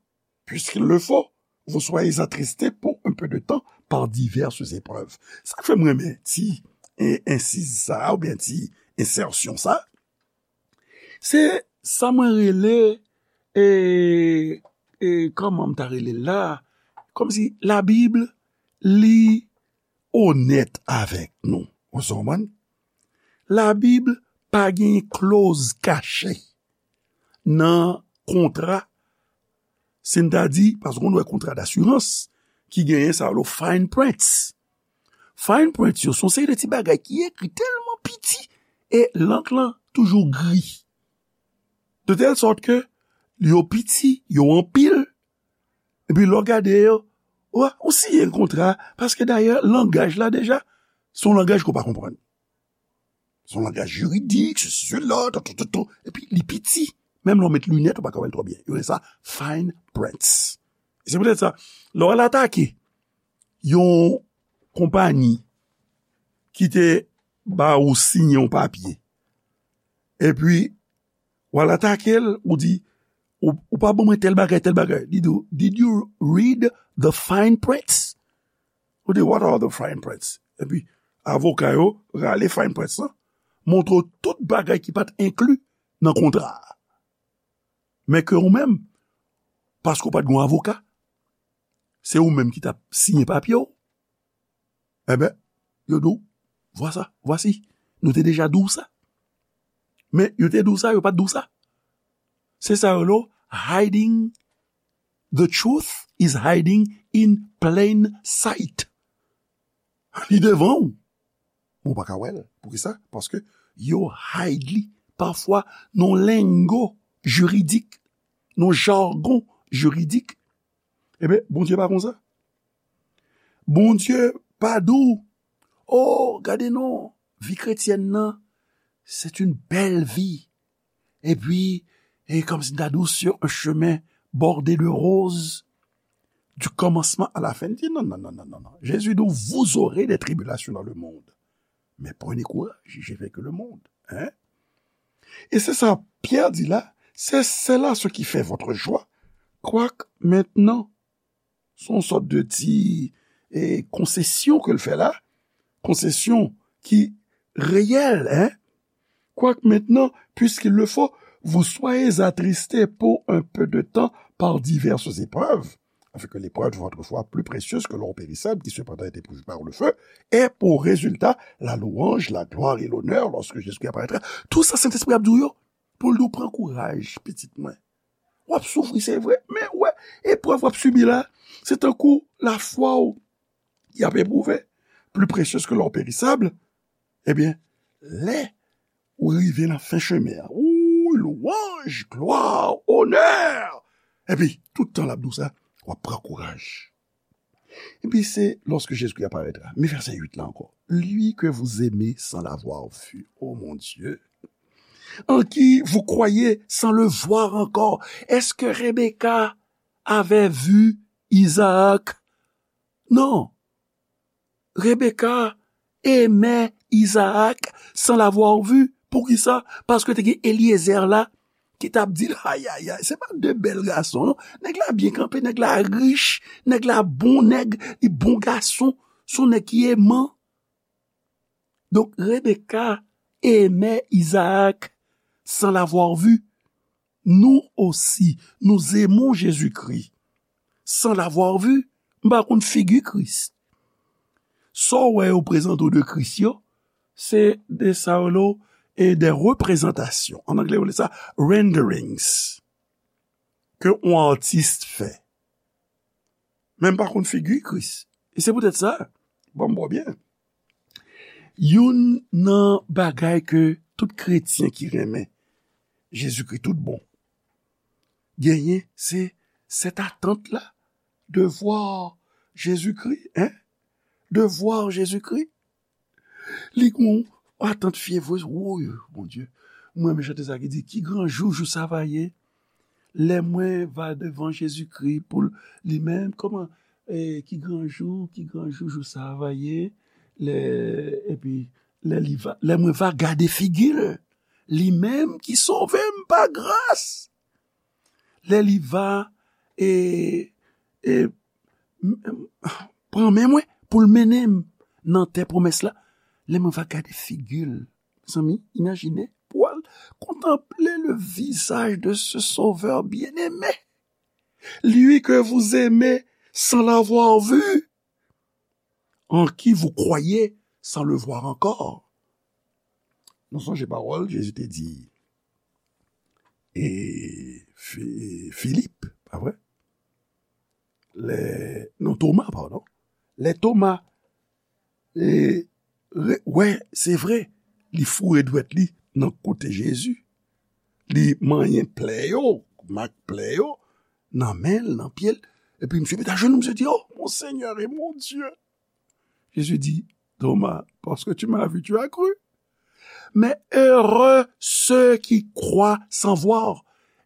puisqu'il le faut, vous soyez attristés pour un peu de temps par diverses épreuves. Sa k fè mwen renmen ti, e, ensiz sa, oubyen ti ensèsyon sa, se sa mwen rele, e, e, kòman m ta rele l la? Kòmsi Labib, li onèt avèk nou. Ou sa konprann? Labib pa gen kloz kache nan kontra, si n ta di, paske nou wè kontra dasirans ki genyen sa yo, fine print. Fine print yo, se yon seri de ti bagay ki ekri tèlman piti e lank lan toujou gri. De tèl sòt ke yo piti, yo anpil, epi lè w gade yo, w, ou siyen kontra, paske dayè, langaj la deja, se yon langaj ke w pa konprann. Se yon langaj jiridik, sesi, sela, tou, tou, tou, tou. Epi li piti. Menm lè w met linèt, ou pa ka wè l twò byen. Yo rele sa fine print. E se poutèt sa, lè w al atake yon konpayi ki te ba ou siyen yon papye, epi w al atake l, ou di, ou, ou pa ban mwen tèl bagay, tèl bagay. Li di w, "Did you read the fine print?" Ou di, "What are the fine prints?" Epi, avoka yo rale fine print lan, montre w tout bagay ki pa t enkli nan kontra a. Men ke ou menm, paske w pa t gen yon avoka. Se ou menm ki t ap siyen papye w. Enben, yo di w, vwasa, vwasi, nou te deja di w sa. Men yo te di w sa, yo pa t di w sa. Se sa yo rele hiding, the truth is hiding in plain sight. Li devan w. Men w pa ka wè l. Poukisa? Paske yo hide li pafwa nan lingo jiridik, nan jagon jiridik. Ebyen, Bondye pa konsa. Bondye pa di w, o, gade non, vi kretyèn nan, c'est une belle vie. Epi, e kòmsi m ta di w, sur un chemin bordé de roses, du commencement à la fin. Li di, non, non, non, non, non, non. Jésus dit, vous aurez des tribulations dans le monde. Mais prenez courage, j'ai vaincu le monde. Hein? E se sa Pyè di la, c'est cela ce qui fait votre joie. Quoique maintenant, se yon sòt de ti e, konsesyon ke l fè la, konsesyon ki reyèl, hein? Quoique maintenant, puisqu'il le faut, vous soyez attristés pour un peu de temps par diverses épreuves, afin que l'épreuve de votre foi, plus précieuse que l'or périssable, qui cependant est éprouvé par le feu, ait pour résultat la louange, la gloire et l'honneur lorsque Jésus-Christ apparaîtra. Tout sa, Sentespri ap di w yo, pou l di w pran kouraj, pitit mwen. W ap soufri, se vre, men w wè, eprèv w ap sibi la, se tankou lafwa w y ap epwouve, plus précieuse que l'or périssable. Ebyen, lè ou rive nan fen chemen an, ou louanj, glwa, onè! Epi, tout tan l ap di w sa, w ap pran kouraj. Epi se lorsque Jésus-Christ apparaîtra. Men vèsè uit la ankò. Lui que vous aimez sans l'avoir vu. Oh mon Dieu. En qui vous croyez sans le voir encore. Est-ce que Rebecca avait vu Isaac? Non. Rebecca aimait Isaac sans l'avoir vu. Poukisa? Paske te gen Eliezer la ki t ap di l, ay, ay, ay, se pa de bèl gason, non. Nèg la byen kanpe, nèg la rich, nèg la bon nèg, li bon gason, se yon nèg ki eman. Donk, Rebecca aimait Isaac sans l'avoir vu. Nous aussi, nous aimons Jésus-Christ sans l'avoir vu. M pa konn figi Kris. Sa w wè yo prezante w de Kris yo, se de sa yo rele e de reprezantasyon. An anglè, yo rele sa renderings. Ke yon atis fè. Men m pa konn figi Kris. E se poutèt sa, ban m bò byen. Youn nan bagay ke tout kretyen ki renmen Jezikri tout bon genyen, se cette attente-là de voir Jésus-Christ, hein? De voir Jésus-Christ. Li gon atant fyevre, woy, Bondye. Mwen renmen chante sa ki di, ki gran jou, jou sa va ye. Lè mwen va devan Jezikri pou li menm, kòman, eh, ki gran jou, ki gran jou, jou sa va ye. Lè, epi, lè li va, lè mwen va gade figi l, li menm ki sove m pa gras. Lè li va, e, e, m, m, pran men mwen pou l mennen m nan tè pwomès la, lè mwen va gade figi l, mezanmi, imajine, pou al kontanple le visaj de ce Sauveur bien-aimé, lui que vous aimez sans l'avoir vu, en qui vous croyez sans le voir encore. Nou sonje pawòl Jezi te di e Fi-, Filip, pa vre? Lè, non, Toma, padon. Lè Toma, e, re-, wè, se vre, li foure dwèt li nan kote Jezi. Li manyen plè yo, mak plè yo, nan men l, nan pye l. Epi misye met ajenou, misye di, oh, mon Seigneur et mon Dieu. Jésus dit, Thomas, parce que tu m'as vu, tu as cru. Mais heureux ceux qui croient sans voir.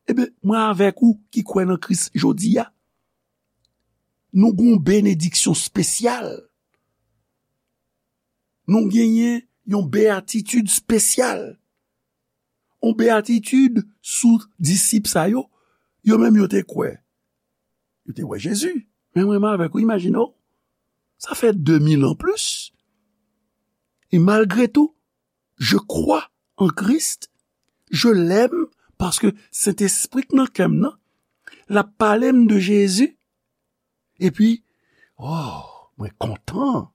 Ebyen, mwen avèk ou ki kwè nan Kris jodi a. Nou gen yon benediksyon espesyal. Nou genyen yon beyatitid espesyal. Yon beyatitid sou disip sa yo. Yo menm yo te kwè. Yo te wè Jezi. Men mwen menm avèk ou, imajine w. Sa fè de mil an plis. E malgre tou, je crois en Christ, je l'aime, paske Sentespri k nan kè m nan, L ap pale m de Jezi. Epi, oh, mwen kontan.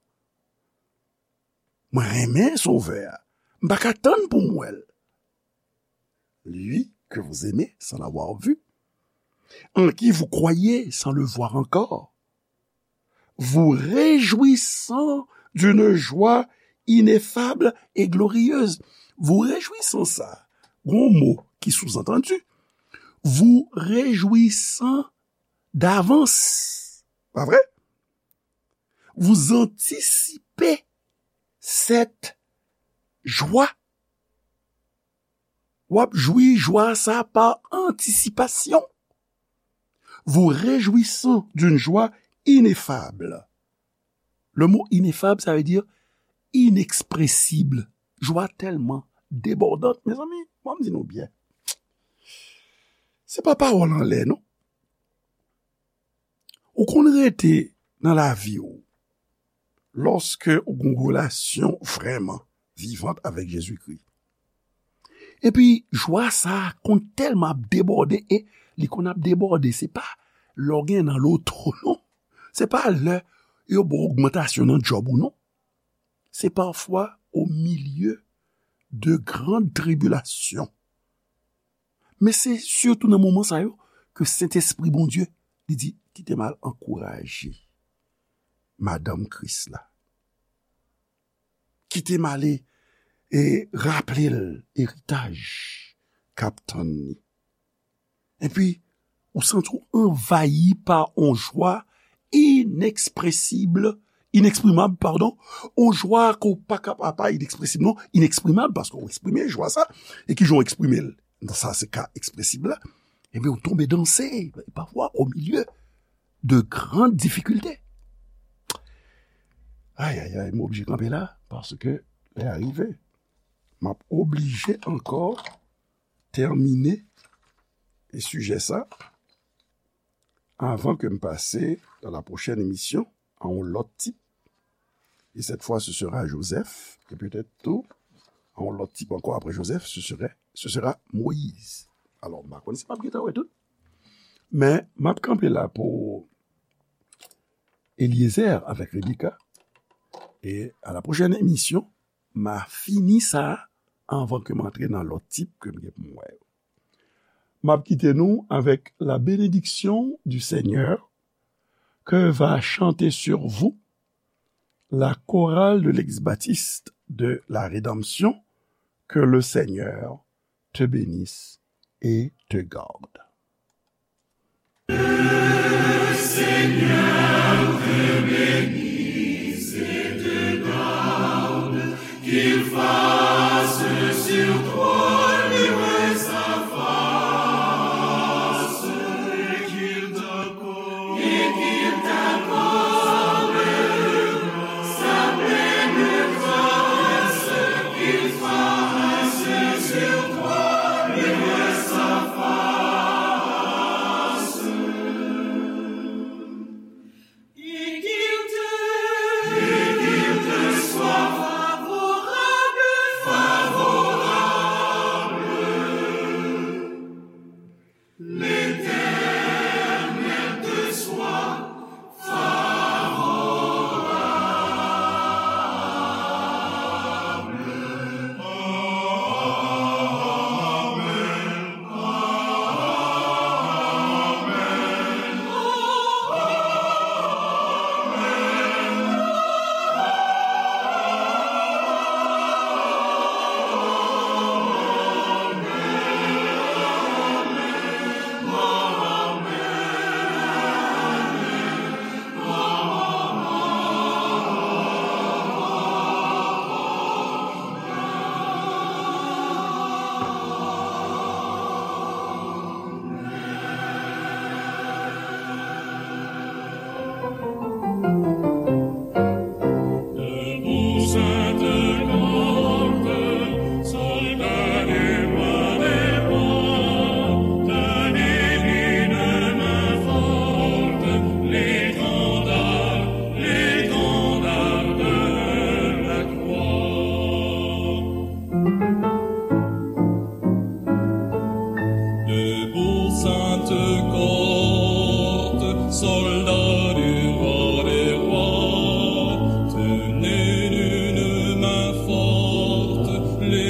Mwen renmen Sovè a. M pa ka tann pou m wè l. Lui que vous aimez sans l'avoir vu, en qui vous croyez sans le voir encore, vous réjouissant d'une joie ineffable et glorieuse. Vous réjouissant sa, gon mo ki souzantandi, vous réjouissant d'avance. Pa vre? Vous anticipez cette joie. W ap jwi jwa sa pa antisipasyon. Vous réjouissant d'une joie ineffable. Le mot ineffable, ça veut dire inexpressible. Jwa tèlman debòdant, mezanmi, ban m di nou byen. Se pa pawòl anlè, non. Ou konn rete nan lavi w lòske ou gen yon relasyon vrèman vivant avèk Jezikri. Epi, jwa sa a konn tèlman ap debòde, e li konn ap debòde, se pa lè w gen nan loto, non. Se pa lè yo ba w ogmantasyon nan djòb ou, non. Se pafwa au milieu de grandes tribulations. Men se sitou nan moman sa yo ke Sentespri Bondye, li di, "Kite m al ankouraje madanm Kris la. Kite m ale e raple l eritaj k ap tann li." Epi, ou santi w anvayi pa yon jwa inekspresib, ineksprimab, padon, yon jwa ke w pa ka, pa, pa inekspresib, non, ineksprimab, paske w eksprime jwa sa, e ki jan w eksprime l? Sa se ka ekspresib la. Ebyen, ou tonbe danse, pafwa, au milieu de grandes difficultés. Ay, ay, ay, m oblije kanpe la, paske lè a rive. M ap oblije ankò tèmine e sijè sa avan ke m pase dans la prochaine émission à un autre type. Et cette fois, ce sera Joseph, et peut-être tout, à un autre type encore après Joseph, ce serait, ce sera Moïse. Alors, m pa konn si m ap gentan wè tout. Men, m ap kanpe la pou Eliezer avec Rebecca. Et à la prochaine émission, m a fini sa avan ke m antre nan lòt tip ke m gen pou m wè yo. M ap kite nou avec la bénédiction du Seigneur que va chanter sur vous la chorale de l'ex-baptiste de la Rédemption. Que le Seigneur te bénisse et te garde.